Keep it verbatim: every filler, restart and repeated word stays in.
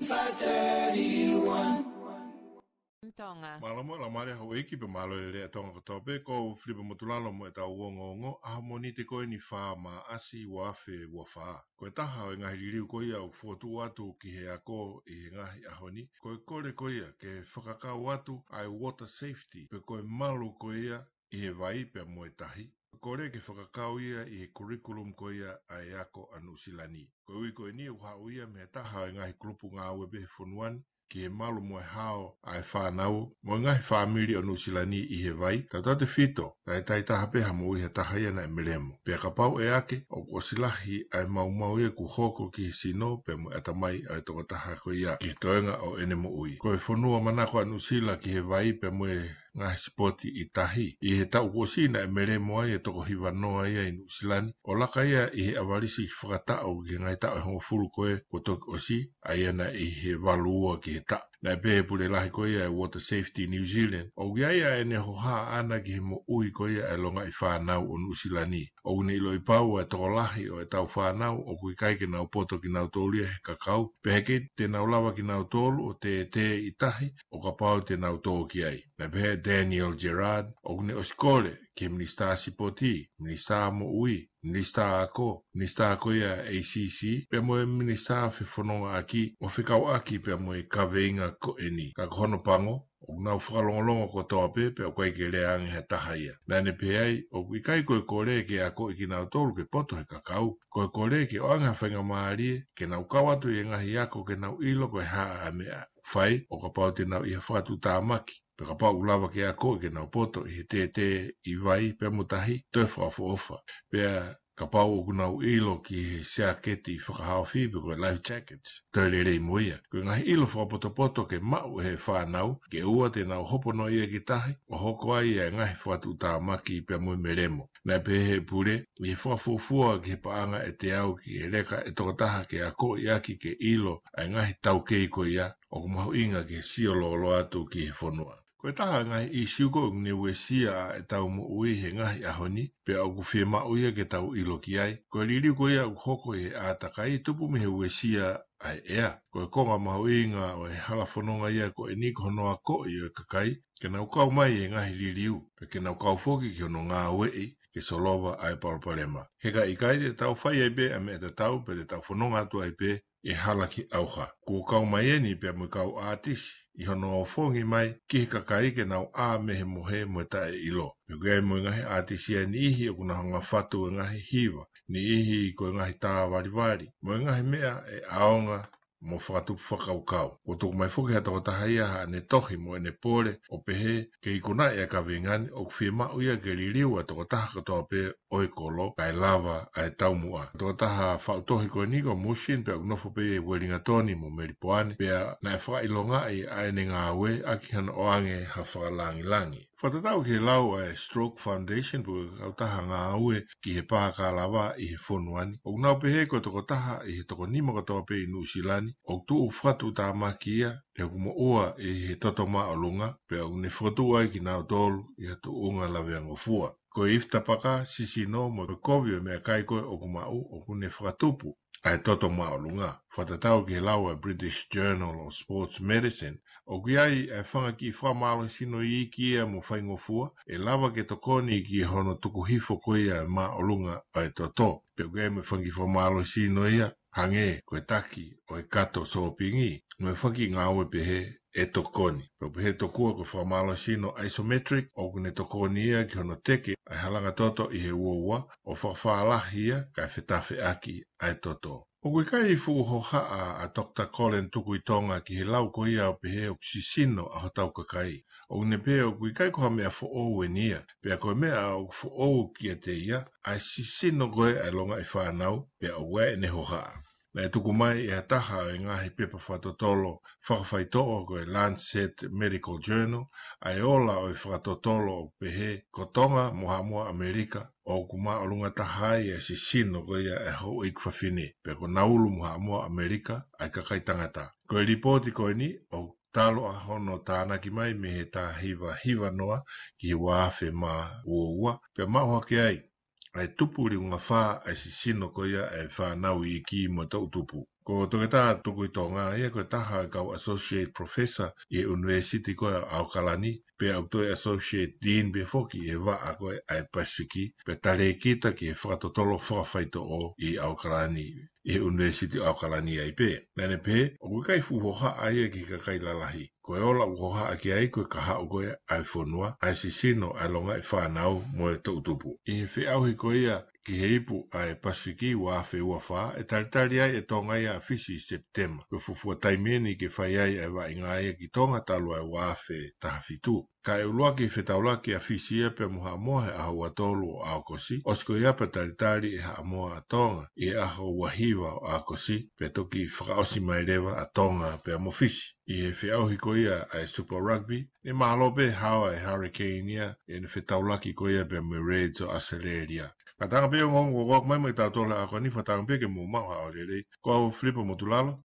Five thirty-one. Tonga. Mālō mo e laumālie houʻeiki pea mālō e lelei ʻa Tonga kotoa pē, ko Filipe Motulalo mo ʻetau ongoongo ʻaho Mōnite ko eni fā Māʻasi ua afe ua fā. Ko e taha ʻo e ngaahi liliu ko ia ʻoku fokotuʻu atu ki he ako ʻi he ngaahi ʻaho ni, ko e kole ko ia ke fakakau atu ʻa e water safety, pe ko e malu ko ia ʻi he vai pea mo e tahi. Kole ke fakakau ia ʻi he curriculum ko ia ʻa e ako ʻa Nuʻusila ni. Ko e ui ko eni ʻoku haʻu ia mei he taha ʻo e ngaahi kulupu ngāue pē he fonua ni, ki he malu mo e hao ʻa e fānau mo e ngaahi fāmili ʻo Nuʻusila ni ʻi he vai, tautautefito, ʻa e taʻitaha pē ha moʻui ha taha ia naʻe melemo. Pea kapau ʻe ake, ʻoku ʻosi lahi ʻa e maumau ia kuo hoko ki he sino pea mo e ʻatamai ʻa e tokotaha ko ia ki he toenga ʻo ʻene moʻui. Ko e fonua manako ʻa Nuʻusila ki he vai pea mo e ngaahi sipoti ʻi tahi. ʻI he taʻu kuo ʻosi naʻe melemo ai e toko hiva noa ia ʻi Nuʻusila ni, ʻo laka ia ʻi he ʻavalisi fakataʻu ki he ngaahi taʻu ʻe hongofulu ko ē kuo toki ʻosi, ʻa ia naʻe ʻi he valu ua ki he taʻu. Naʻe pehē ʻe he pule lahi ko ia ʻa e Water Safety New Zealand, ʻoku ʻi ai ʻa ʻene hohaʻa ʻana ki he moʻui ko ia ʻa e longaʻi fānau ʻo Nuʻusila ni. ʻOku ne ʻiloʻi pau ʻa e tokolahi ʻo ʻetau fānau ʻoku ʻikai ke nau poto kinautolu ia he kakau, pea heʻikai te nau lava kinautolu ʻo tētē ʻi tahi ʻo kapau te nau tō ki ai. Naʻe pehē ʻe Daniel Gerard, ʻoku ne ʻosi kole ki he Minisitā Sipoti, Minisitā Moʻui, Minisitā Ako, Minisitā ko ia ʻa e A C C, pea mo e Minisitā Fefonongaʻaki, ʻo fekauʻaki pea mo e kaveinga ko eni. Ka ko hono pango, ʻoku nau fakalongolongo kotoa pē, pea ʻoku ʻikai ke lea ange ha taha ia. Naʻa ne pehē ai, ʻoku ʻikai ko e kole ke akoʻi kinautolu ke poto he kakau. Ko e kole ke ʻoange ha faingamālie ke nau kau atu ʻi he ngaahi ako ke nau ʻilo ko e hā ʻa e meʻa ʻoku fai, ʻo kapau te nau ʻi ha fakatuʻutāmaki, pea kapau ʻoku lava ke akoʻi ke nau poto ʻi he tētē ʻi vai pea mo tahi, toe fakaʻofoʻofa. Pea kapau ʻoku nau ʻilo ki he siaketi fakahaofi pe ko e life jackets, toe lelei mo ia. Ko e ngaahi ʻilo fakapotopoto ke maʻu ʻe he fānau, ke ʻoua te nau hopo noa ia ki tahi, ʻo hoko ai ʻa e ngaahi fakatuʻutāmaki pea mo e melemo. Naʻe pehē ʻe he pule, ʻi he fakafuofua ki he paʻanga ʻe teau ki he leka ʻe toko taha ke akoʻi ʻaki ke ʻilo ʻa e ngaahi taukei ko ia, ʻoku mahuʻinga ke sio lōloa atu ki he fonua. Ko e taha e ngaahi ʻīsiu ko ē ʻoku ne uesia ʻa ʻetau moʻui he ngaahi ʻaho ni, pea ʻoku fiemaʻu ia ke tau ʻilo ki ai. Ko e liliu ko ia ʻoku hoko ʻi he ʻātakai tupu mei he uesia ʻa e ʻea. Ko e konga mahuʻinga ʻo e hala fononga ia ko eni ko hono akoʻi ʻo e kakai ke nau kau mai he ngaahi liliu, pea ke nau kau foki ki hono ngāueʻi ke solova ʻa e palopalema. He ka ʻikai te tau fai ai pē ʻa e meʻa tatau, pea te tau fononga atu ai pē ʻi he hala ki ʻauha. Kuo kau mai eni pea mo e kau ʻātisi ʻi hono ofongi mai ki he kakai ke nau ʻā mei he mohe mo e taʻeʻilo. Pea ʻoku ʻi ai mo e ngaahi ʻātisi ʻa e niʻihi ʻoku nau hanga ʻo fatu e ngaahi hiva, niʻihi ko e ngaahi tā valivali, mo e ngaahi meʻa ʻe ʻaonga mo fakatupu fakakaukau. Kuo tuku mai foki ʻe ha tokotaha ia haʻane tohi mo ʻene pole ʻo pehē, ke ikunaʻi ʻa e kaveinga ni, ʻoku fiemaʻu ia ke liliu ʻa e tokotaha kotoa pē ʻo e kolo kae lava ʻa e taumuʻa. Tokotaha faʻu tohi ko eni ko Mushin, pea ʻoku nofo pē ʻi Uelingatoni mo Melipoane, pea naʻe fakaʻilongaʻi ʻa ʻene ngāue ʻaki hano ʻoange ha fakalangilangi. Fakatatau ki he lau ʻa e Stroke Foundation, pe ko e kautaha ngāue ki he pā kalava ʻi he fonua ni, ʻoku nau pehē ko e tokotaha ʻi he toko nima kotoa pē ʻi Nuʻusila ni ʻoku tuʻu fakatuʻutāmaki ia ʻi hoku moʻua ʻi he toto māʻolunga, pea ʻoku ne fokotuʻu ai kinautolu ʻi ha tuʻunga laveangofua. Ko e ifi tapaka, sisino, mo e kovi ʻo e meʻakai ko ē ʻoku maʻu, ʻoku ne fakatupu ʻa e toto māʻolunga. Fakatatau ki he lau ʻa e British Journal of Sports Medicine, ʻoku ʻi ai ʻa e fanga kiʻi fakamālohisino iiki ia mo faingofua ʻe lava ke tokoni ki hono tuku hifo ko ia ʻa e māʻolunga ʻa e toto. Pea ʻoku ʻi ai mo e fanga kiʻi fakamālohisino ia, hangē ko e taki ʻo e kato sōpingi, mo e fanga kiʻi ngāue pehē ʻe tokoni. Pea ʻoku pehē tokua ko e fakamālohisino isometric, ʻoku ne tokoni ia ki hono teke ʻa e halanga toto ʻi he uaua, ʻo fakafālahi ia kae fetafeʻaki ʻa e toto. ʻOku ʻikai fuʻu hohaʻa ʻa Doctor Colin Tukuitonga ki he lau ko ia ʻo pehē ʻoku sisino ʻa hotau kakai. ʻOku ne pehē ʻoku ʻikai ko ha meʻa foʻou eni ia, pea ko e meʻa ʻoku foʻou kiate ia ʻa e sisino ko ē ʻa e longaʻi fānau, pea ʻoku ʻi ai ʻene hohaʻa. Naʻe tuku mai ʻe ha taha ʻo e ngaahi pepa fakatotolo fakafaitoʻo ko e Lancet Medical Journal ʻa e ola ʻo e fakatotolo ʻo pehē ko Tonga mo Haʻamoa ʻAmelika ʻoku māʻolunga taha ai ʻa e sisino ko ia ʻa e houʻeiki fafine, pea ko Naulu mo Haʻamoa ʻAmelika ʻa e kakai tangata. Ko e lipooti ko eni ʻoku talu ʻa hono tānaki mai mei he taha hiva hiva noa ki he ua afe mā ua ua, pea maʻu hake ai ʻa e tupu liunga fā ʻa e sisino ko ia ʻa e fānau iiki mo e toʻutupu. Ko Ko Toketā Tukuitonga ia ko e taha e kau associate professor ʻi he ʻUnivēsiti ko ē ʻAokalani, pea ʻoku toe associate dean pē foki ʻi he vaʻa ko ē ʻa e Pasifiki, pea talēkita ki he fakatotolo fakafaitoʻo ʻi ʻAokalani, ʻi he ʻUnivēsiti ʻAokalani ai pē. Naʻa ne pehē, ʻoku ʻikai fuʻu hohaʻa ia ki he kakai lalahi. Ko e ola ʻoku hohaʻa ki ai ko e kahaʻu ko ē ʻa e fonua, ʻa e sisino, ʻa e longaʻi fānau mo e toʻutupu. ʻI he feʻauhi ko ia ki he ipu ʻa e Pasifiki ua afe ua fā, ʻe talitali ai ʻe Tonga ia ʻa Fisi ʻi Sepitema. Ko e fuofua taimi eni ke fai ai ʻa e vaʻinga ia ki Tonga talu ʻa e ua afe taha fitu. Ka ʻe ʻuluaki fetaulaki ʻa Fisi ia pea mo Haʻamoa he ʻaho ua tolu ʻo ʻAokosi, ʻosi ko ia pea talitali ʻe Haʻamoa ʻa Tonga ʻi he ʻaho ua hiva ʻo ʻAokosi, pea toki fakaʻosi mai leva ʻa Tonga pea mo Fisi. ʻI he feʻauhi ko ia ʻa e Super Rugby, ʻe mahalo pē hawa e Hurricane ia ʻene fetaulaki ko ia pea mo e Reds ʻo ʻAositelēlia. Ka tanga pē ongoongo ko ʻoku mai mai tautolu ʻa ko eni, fakatanga pē ke mou maʻu ha ʻaho lelei. Ko au Filipa Motulalo,